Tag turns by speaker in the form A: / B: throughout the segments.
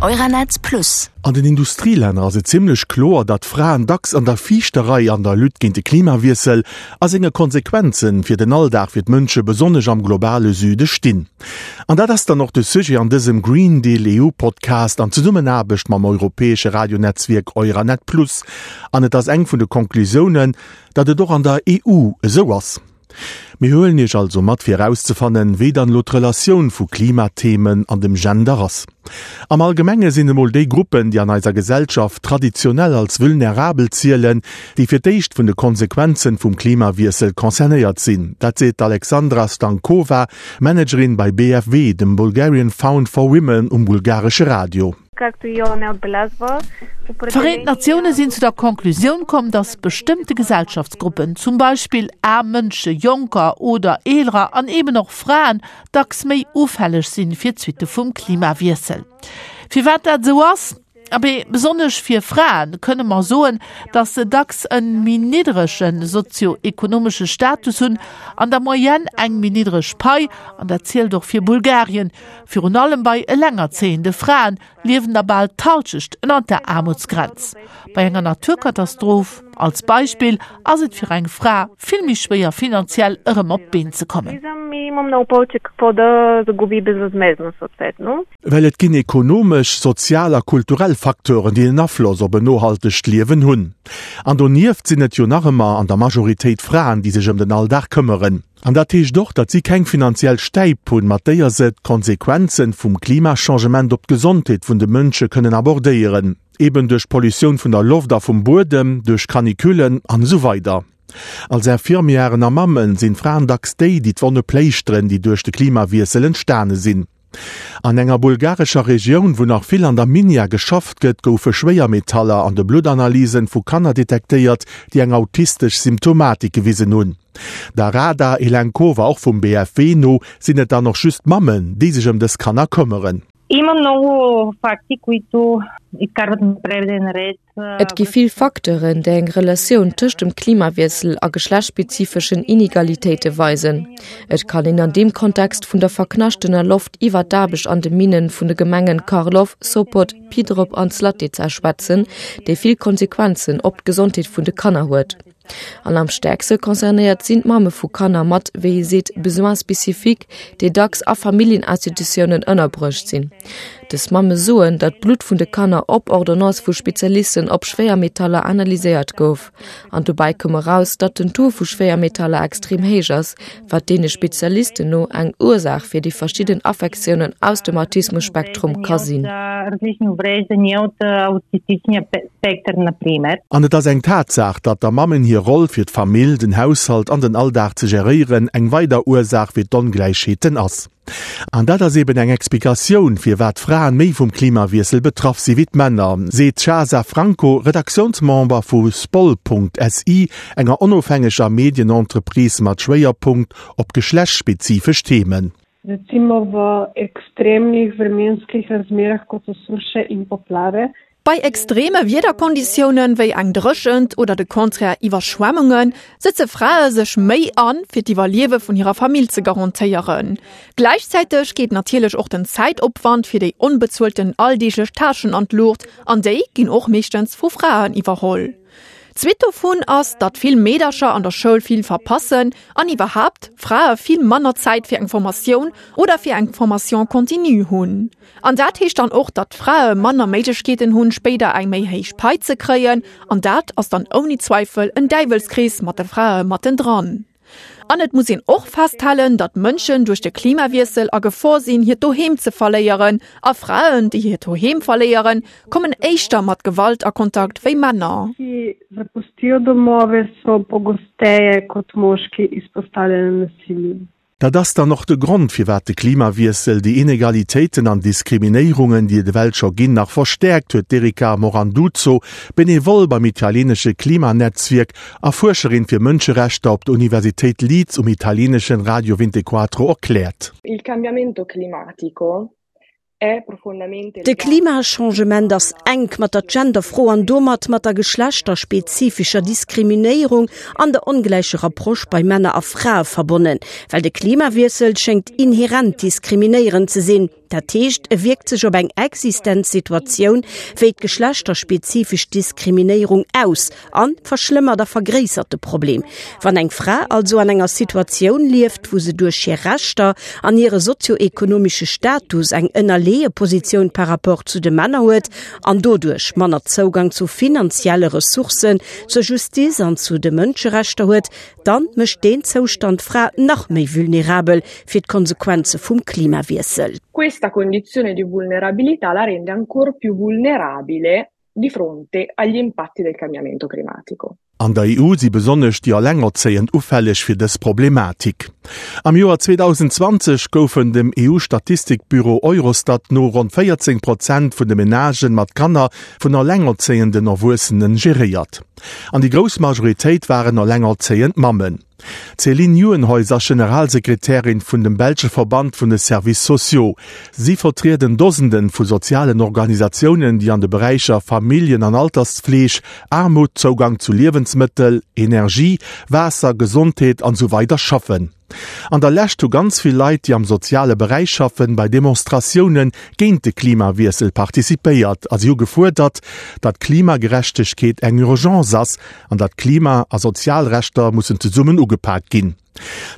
A: Euranet Plus.
B: An den Industrielänner ass et zimmlech kloer, datt Fraen dacks an der viischter Rei an der Lutte géint de Klimawiessel a senge Konsequenzen fir den Alldag fir d'Mënsche besonnesch am globale Süde stinn. An dat ass dann och de Sujet an dësem Green Deal EU Podcast an Zesummenaarbecht mam europäesche Radionetzwierk Euranet Plus. An et ass eng vun de Conclusiounen, datt et och an der EU esou ass. Mir huelen Iech also mat fir erauszefannen, wéi dann elo d'Relatioun vu Klimathemen an dem Gender ass. Am Allgemenge sinn emol déi Gruppen, déi an eiser Gesellschaft traditionell als vulnerabel zielen, déi fir d'éischt vun de Konsequenzen vum Klimawiessel concernéiert sinn. Dat seet d'Alexandra Stankova, Managerin bei BFW, dem Bulgarian Found for Women um bulgaresche Radio.
C: D'Vereent Natioune sinn zu der Conclusioun komm, datt bestëmmte Gesellschaftsgruppen, zum Beispill aarm Mënsche, Jonker oder Eelerer an eeben och Fraen, dacks méi ufälleg sinn fir d'Suitte vum Klimawiessel. Firwat dat esou ass? Abee, besonnesch fir Frae kënne mer soen, datt se dacks e méi niddrege sozio-ekonomesche Status hunn, an der Moyenne eng méi niddreg Pai, an dat zielt och fir Bulgarien, Virun allem bei elengerzéiende Fraen liewen der bal d'Halschecht ënnert der Aarmutsgrenz. Bei enger Naturkatastroph, als Beispill, ass et fir eng Fra vill méi schwéier finanziell erëm op d'Been ze kommen.
B: Well et ginn ekonomesch, sozial a kulturell Facteuren, déi en Afloss op en nohaltegt Liewen hunn. An donieft sinn et jo nach ëmmer an der Majoritéit Fraen, déi sech ëm den Alldag këmmeren. An dat heescht och, datt si keng finanziell Stäip hunn, mat déier se d'Konsequenzen vum Klimachangement op d'Gesondheet vun de Mënsche kënnen abordéieren, eben duerch d'Pollutioun vun der Loft a vum Buedem, duerch Canicullen an esou weider. Als Infirmièren a Mammen sinn d'Fraen dacks déi, déi d'Wonne pléischteren, déi duerch de Klimawiessel entstane sinn. An enger bulgarescher Regioun, wou nach vill an der Minia geschafft gëtt, goufe Schwéiermetaller an de Bluttanalysen vu Kanner detektéiert, déi eng autistesch Symptomatik gewisen hunn. Der Rada Elenkova, och vum BFW, no sinn et dann och just d'Mammen, déi sech ëm dës Kanner këmmeren.
D: Има много факти, които изкарват на преден ред
E: Et gi vill Facteuren, déi eng Relatioun tëscht dem Klimawiessel a geschlechtsspezifeschen Inegalitéite weisen. Et kann een an deem Kontext vun der verknaschtener Loft iwwer d'Aarbecht an de Minne vun de Gemengen Karlov, Sopot, Pidrop an Zlatica schwätzen, déi vill Konsequenzen op d'Gesondheet vun de Kanner huet. An am stäerkste concernéiert sinn d'Mamme vu Kanner mat, wéi ee seet, Besoins spécifiques, déi dacks a Familljeninstitutiounen ënnerbruecht sinn. Dës Mamme soen, datt d'Blutt vun de Kanner op Ordonnance vu Spezialisten op Schwéiermetaller analyséiert gouf. An dobäi koum eraus, datt den Taux vu Schwéiermetaller extrem héich ass, wat deene Spezialisten no eng Ursaach fir déi verschidden Affektiounen aus dem Autismus-Spektrum ka sinn.
B: An et ass eng Tatsaach, datt der Mammen hir Roll fir d'Famill, den Haushalt an den Alldag ze geréieren eng weider Ursaach fir d'Ongläichheeten ass. An dat ass eben eng Explikatioun, firwat d'Fraen méi vum Klimawiessel betraff si wéi d'Männer, seet d'Chasa Franco, Redaktiounsmember vu Spol.si, enger onofhängeger Medienentreprise mat Schwéierpunkt op geschlechtsspezifesch Themen.
F: Recimo v ekstremnih vremenskih razmerah, kot so suše in poplave.
G: Bei extreme Wiederkonditiounen, wéi eng Dréchent oder de Contraire Iwwerschwemmungen, sëtze Frae sech méi an, fir d'Iwwerliewe vun hirer Famill ze garantéieren. Gläichzäiteg geet natierlech och den Zäitopwand fir déi onbezuelten alldeeglech Tâchen an d'Luucht, an déi ginn och meeschtens vu Fraen iwwerholl. D'Suite dovun ass, datt vill Meedercher an der Schoul vill verpassen an iwwerhaapt Frae vill manner Zäit fir eng Formatioun oder fir eng Formation continue hunn. An dat heescht dann och, datt d'Frae manner Méiglechkeeten hunn, spéider eng méi héich Pai ze kréien. An dat ass dann ouni Zweifel en Däiwelskrees mat de Frae mattendran. An et muss een och festhalen, datt Mënschen duerch de Klimawiessel a Gefor sinn, hiert Doheem ze verléieren. A Fraen, déi hiert Doheem verléieren, kommen éischter mat Gewalt a Kontakt wéi Männer.
F: Ki zapustijo domove, so pogosteje kot moški izpostavljeni nasilju.
B: Dat ass dann och de Grond, firwat de Klimawiessel déi Inegalitéiten an Diskriminéierungen, déi et ewell scho ginn, nach verstäerkt, huet d'Erika Moranduzzo, Benevole beim italienesche Klimanetzwierk a Fuerscherin fir Mënscherechter op der Universitéit Leeds um italieneschen Radio Vintequatro erkläert.
H: Il cambiamento climatico
I: De Klimachangement ass enk mat der Genderfro an domat mat der geschlechterspezifischer Diskriminéierung an der ongläicher Approche bei Männer a Frae verbonnen, well de Klimawiessel schéngt inherent diskriminéierend ze sinn. Dat heescht, e wierkt sech op eng existent Situatioun wéi d'geschlechterspezifesch Diskriminéierung aus a verschlëmmert a vergréissert de Problem. Wann eng Fra also an enger Situatioun lieft, wou se duerch hir Rechter an hire sozioekonomesche Status eng ënnerleeë Positioun par rapport zu de Männer huet an doduerch manner Zougang zu finanzielle Ressourcen, zur Justiz an zu de Mënscherechter huet, dann mécht deen Zoustand d'Fra nach méi vulnerabel fir d'Konsequenze vum Klimawiessel.
H: Questa condizione di vulnerabilità la rende ancor più vulnerabile di fronte agli impatti del cambiamento climatico.
B: An der EU si besonnesch déi Allengerzéiend ufälleg fir dës Problematik. Am Joer 2020 goufen dem EU-Statistikbüro Eurostat no ronn 14 Prozent vun de Menagen mat Kanner vun allengerzéienden Erwuessenen geréiert. An déi grouss Majoritéit waren allengerzéiend Mammen. D'Céline Nieuwenhuys ass Generalsekretärin vun dem belsche Verband vun de Services sociaux. Si vertrieden Dosenden vu sozialen Organisatiounen, déi an de Beräicher Familljen an Altersfleeg, Aarmut, Zougang zu Liewensmëttel, Energie, Waasser, Gesondheet an esou weider schaffen. An der Lescht hu ganz vill Leit, déi am soziale Beräich schaffen, bei Demonstratioune géint de Klimawiessel participéiert a si hu gefuerdert, datt Klimagerechtegkeet eng Urgence ass an datt Klima a Sozialrechter mussen zesummen ugepak ginn.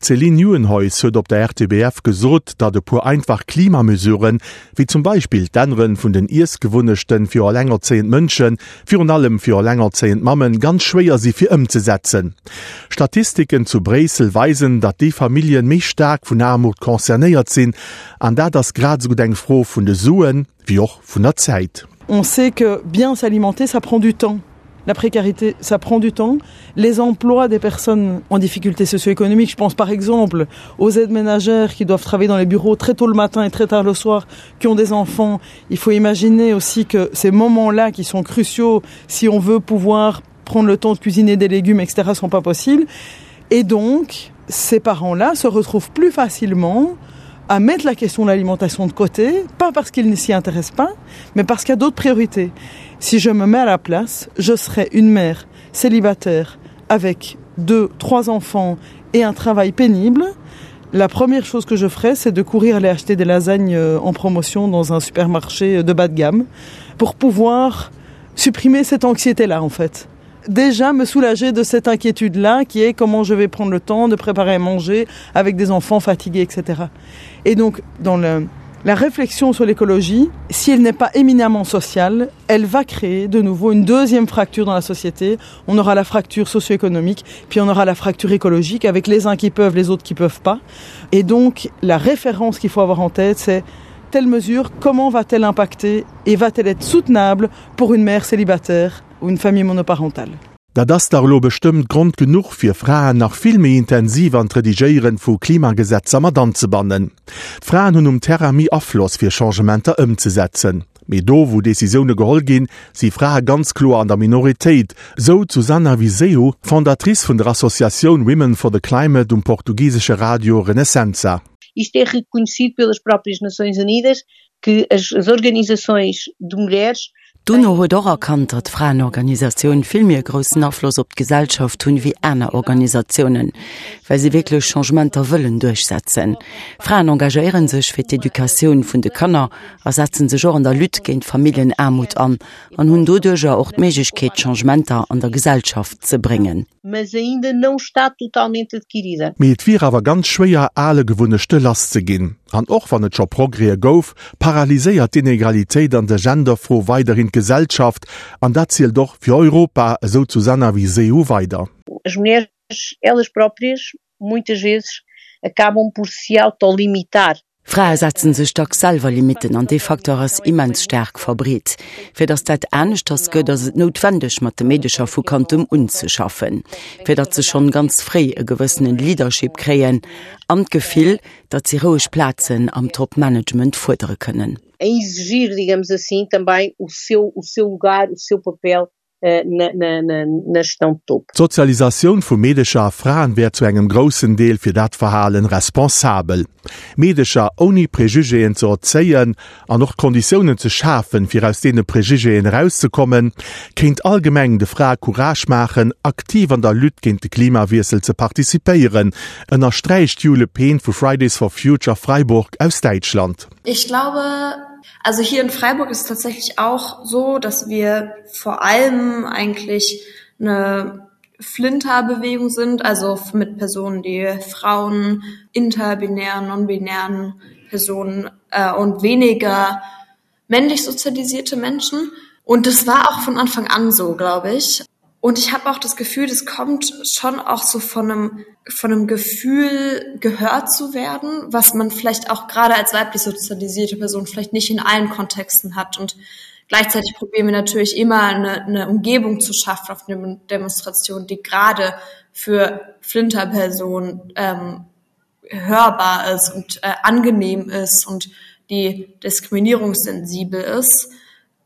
B: D'Céline Nieuwenhuys huet op der RTBF gesot, datt e puer einfach Klimamesuren, wéi zum Beispill d'Ännere vun den Iessgewunnechten fir elengerzéiend Mënschen, virun allem fir elengerzéiend Mammen, ganz schwéier si fir ëmzesetzen. Statistiken zu Bréissel weisen, datt déi Familljen méi staark vun Aarmut concernéiert sinn, an dat ass grad esou gutt eng Fro vun de Suen, wéi och vun der Zäit.
A: On sait que bien s'alimenter, ça prend du temps. La précarité, ça prend du temps. Les emplois des personnes en difficulté socio-économique, je pense par exemple aux aides ménagères qui doivent travailler dans les bureaux très tôt le matin et très tard le soir, qui ont des enfants. Il faut imaginer aussi que ces moments-là qui sont cruciaux si on veut pouvoir prendre le temps de cuisiner des légumes, etc., sont pas possibles. Et donc, ces parents-là se retrouvent plus facilement à mettre la question de l'alimentation de côté, pas parce qu'ils ne s'y intéressent pas, mais parce qu'il y a d'autres priorités. Si je me mets à la place, je serai une mère célibataire avec deux, trois enfants et un travail pénible. La première chose que je ferai, c'est de courir aller acheter des lasagnes euh, en promotion dans un supermarché de bas de gamme pour pouvoir supprimer cette anxiété-là en fait. Déjà me soulager de cette inquiétude-là qui est comment je vais prendre le temps de préparer à manger avec des enfants fatigués, etc. Et donc dans le, la réflexion sur l'écologie, si elle n'est pas éminemment sociale, elle va créer de nouveau une deuxième fracture dans la société. On aura la fracture socio-économique, puis on aura la fracture écologique avec les uns qui peuvent, les autres qui peuvent pas. Et donc la référence qu'il faut avoir en tête, c'est telle mesure, comment va-t-elle impacter et va-t-elle être soutenable pour une mère célibataire ou une famille monoparentale?
B: Dat ass dach elo bestëmmt Grond genuch fir Fraen nach vill méi intensiv an d'Redigéieren vu Klimagesetzer mat anzebannen. D'Fraen hunn um Terrain méi Afloss fir Changementer ëmzesetzen. Mee do wou Decisioune geholl ginn, si Frae ganz kloer an der Minoritéit, sou d'Susana Viseu, Fondatrice vun der Associatioun Women for the Climate um portugisesche Radio Renascença.
J: Isto é reconhecido pelas próprias Nações Unidas, que as, as organizações de mulheres
K: D'UNO huet och erkannt, datt Fraenorganisatioun vill méi e groussen Afloss op d'Gesellschaft hunn ewéi aner Organisatiounen, well si wierklech Changementer wëllen duerchsetzen. Fraen engagéiere sech fir d'Educatioun vun de Kanner a setzen sech och an der Lutte géint Familljenaarmut an an hunn doduercher och d'Méiglechkeet, Changementer an der Gesellschaft ze bréngen.
J: Mas ainda não está totalmente adquirida.
B: Mee et wier awer ganz schwéier, ale Gewunnechte lass ze ginn. An och wann et scho Progrèse gouf, paralyséiert d'Inegalitéit an der Genderfro weiderhin d'Gesellschaft. An dat zielt och fir Europa, esou d'Susana Viseu weider.
J: As mulheres, elas próprias, muitas vezes acabam por se autolimitar.
K: Frae setzen sech dacks selwer Limitten an dee Facteur ass immens staark verbreet. Fir datt dat aneschters gëtt, ass et noutwendeg mat de Meedecher vu Kandem un ze schaffen, fir datt se schonn ganz fréi e gewëssenen Leadership kréien an d'Gefill, datt si roueg Plazen am Top-Management fuerdere kënnen.
J: A exigir, digamos assim, também o seu, o seu lugar, o seu papel. na, na, na, na gestão de topo.
B: D'Sozialisatioun vu Meedecher a Fraen wär zu engem groussen Deel fir dat Verhalen responsabel. Meedecher ouni Prejugéen ze erzéien an och d'Konditiounen ze schafen, fir aus deene Prejugéen erauszekommen, kéint allgemeng de Frae Courage maachen, aktiv an der Lutte géint de Klimawiessel ze participéieren, ënnersträicht d'Jule Pehn vu Fridays for Future Freiburg aus Däitschland.
L: Ich glaube, also hier in Freiburg ist es tatsächlich auch so, dass wir vor allem eigentlich eine Flinterbewegung sind, also mit Personen, die Frauen, interbinären, nonbinären Personen äh, und weniger männlich sozialisierte Menschen. Und das war auch von Anfang an so, glaube ich. Und ich habe auch das Gefühl, das kommt schon auch so von einem, von einem Gefühl gehört zu werden, was man vielleicht auch gerade als weiblich sozialisierte Person vielleicht nicht in allen Kontexten hat. Und gleichzeitig probieren wir natürlich immer eine, eine Umgebung zu schaffen auf eine Demonstration, die gerade für Flinterpersonen ähm, hörbar ist und äh, angenehm ist und die diskriminierungssensibel ist.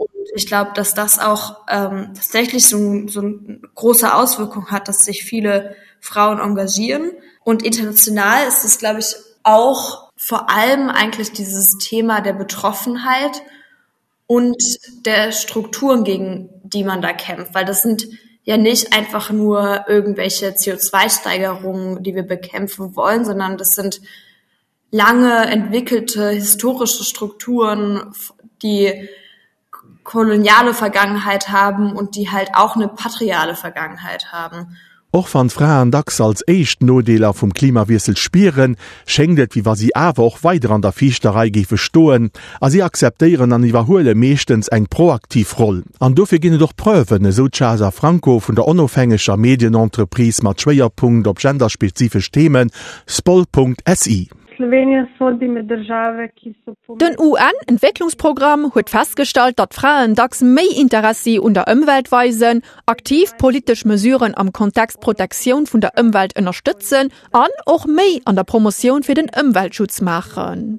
L: Und ich glaube, dass das auch ähm, tatsächlich so, so eine große Auswirkung hat, dass sich viele Frauen engagieren. Und international ist es, glaube ich, auch vor allem eigentlich dieses Thema der Betroffenheit und der Strukturen, gegen die man da kämpft, weil das sind ja nicht einfach nur irgendwelche CO2-Steigerungen, die wir bekämpfen wollen, sondern das sind lange entwickelte historische Strukturen, die koloniale Vergangenheit haben und die halt auch eine patriale Vergangenheit haben.
B: Och wann d'Fraen dacks als éischt d'Nodeeler vum Klimawiessel spieren, schéngt et, wéi wa si awer och weider an der viischter Rei géife stoen a si akzeptéieren an iwwerhuele meeschtens eng proaktiv Roll. An dofir ginn et och Preuven, esou d'Chasa Franco vun der onofhängeger Medienentreprise mat Schwéierpunkt op genderspezifesch Themen, Spol.si.
G: Den UN-Entwécklungsprogramm huet festgestallt, datt Fraen dacks méi Interessi un der Ëmwelt weisen, aktiv politesch Mesuren am Kontext Protektioun vun der Ëmwelt ënnerstëtzen an och méi an der Promotioun fir den Ëmweltschutz maachen.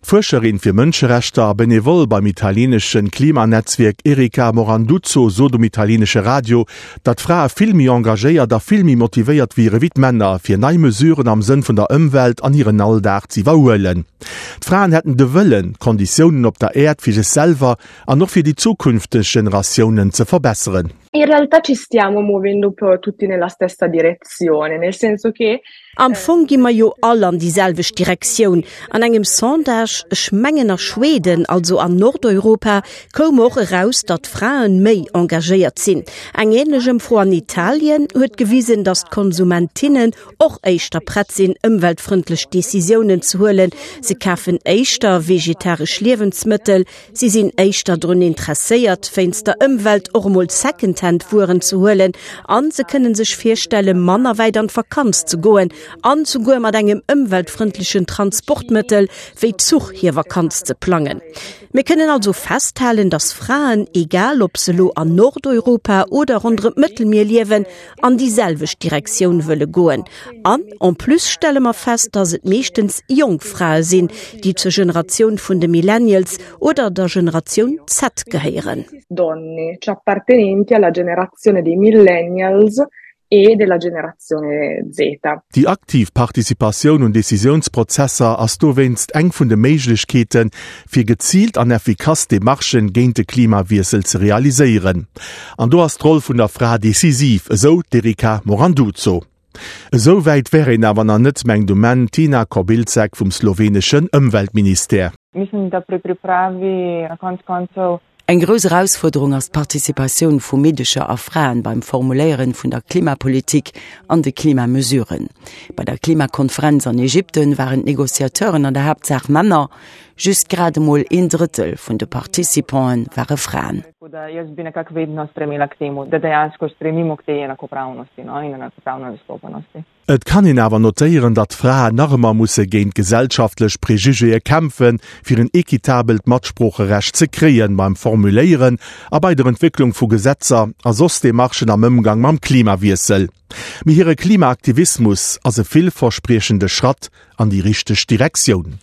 B: D'Fuerscherin fir Mënscherechter a Benevole beim italienesche Klimanetzwierk Erika Moranduzzo sot um italienesche Radio, datt Frae vill méi engagéiert a vill méi motivéiert wiere wéi d'Männer, fir nei Mesuren am Sënn vun der Ëmwelt an hiren Alldag z'iwwerhuelen. D'Fraen hätten de Wëllen, d'Konditiounen op der Äerd fir sech selwer an och fir déi zukünfteg Generatiounen ze verbesseren.
H: In realtà ci stiamo muovendo un po' tutti nella stessa direzione, nel senso che
I: Am Fong gi mer jo all an déi selwecht Direktioun. An engem Sondage, ech mengen a Schweden, also an Nordeuropa, koum och eraus, datt Fraen méi engagéiert sinn. Eng änlech Ëmfro an Italien huet gewisen, datt d'Konsumentinnen och éischter prett sinn, ëmweltfrëndlech Decisiounen ze huelen. Se kafen éischter vegetaresch Liewensmëttel, Si sinn éischter drun interesséiert, wéinst der Ëmwelt och emol Secondhand-Wueren ze huelen a se kënne sech virstelle manner wäit an d'Vakanz ze goen an souguer mat engem ëmweltfrëndlechen Transportmëttel wéi Zuch hir Vakanz ze plangen. Mir kënnen also festhalen, datt Fraen, egal ob se elo an Nordeuropa oder ronderëm d'Mëttelmier liewen, an déi selwecht Direktioun wëlle goen. An en plus stelle mer fest, dass et meeschtens jonk Frae sinn, déi zur Generatioun vun de Millennials oder der Generatioun Z gehéieren.
H: Donne, cioè appartenenti alla generazione dei Millennials e della generazione Z.
B: Déi aktiv Participatioun un Decisiounsprozesser ass dowéinst eng vun de Méiglechkeeten, fir geziilt an effikass Demarchen géint de Klimawiessel ze realiséieren. An do ass d'Roll vun der Fra decisiv, esou d'Erika Moranduzzo. Esou wäit wär een awer nach net, mengt um Enn d'Tina Kobilcek vum sloweneschen Ëmweltministère.
M: Mislim, da pri pripravi na konec koncev
K: Eng grouss Erausfuerderung ass d'Participatioun vu Meedecher a Fraen beim Formuléieren vun der Klimapolitik an de Klimamesuren. Bei der Klimakonferenz an Ägypten waren d'Negociateuren an der Haaptsaach Männer. Just grad emol een Drëttel vun de Participanten ware Fraen.
B: Et kann een awer notéieren, datt Fraen nach ëmmer musse géint gesellschaftlech Prejugéë kämpfen, fir en equitabelt Matsproocherecht ze kréien beim Formuléieren a bei der Entwécklung vu Gesetzer a soss Demarchen am Ëmgang mam Klimawiessel. Mee hire Klimaaktivismus ass e villverspriechende Schratt an déi richteg Direktioun.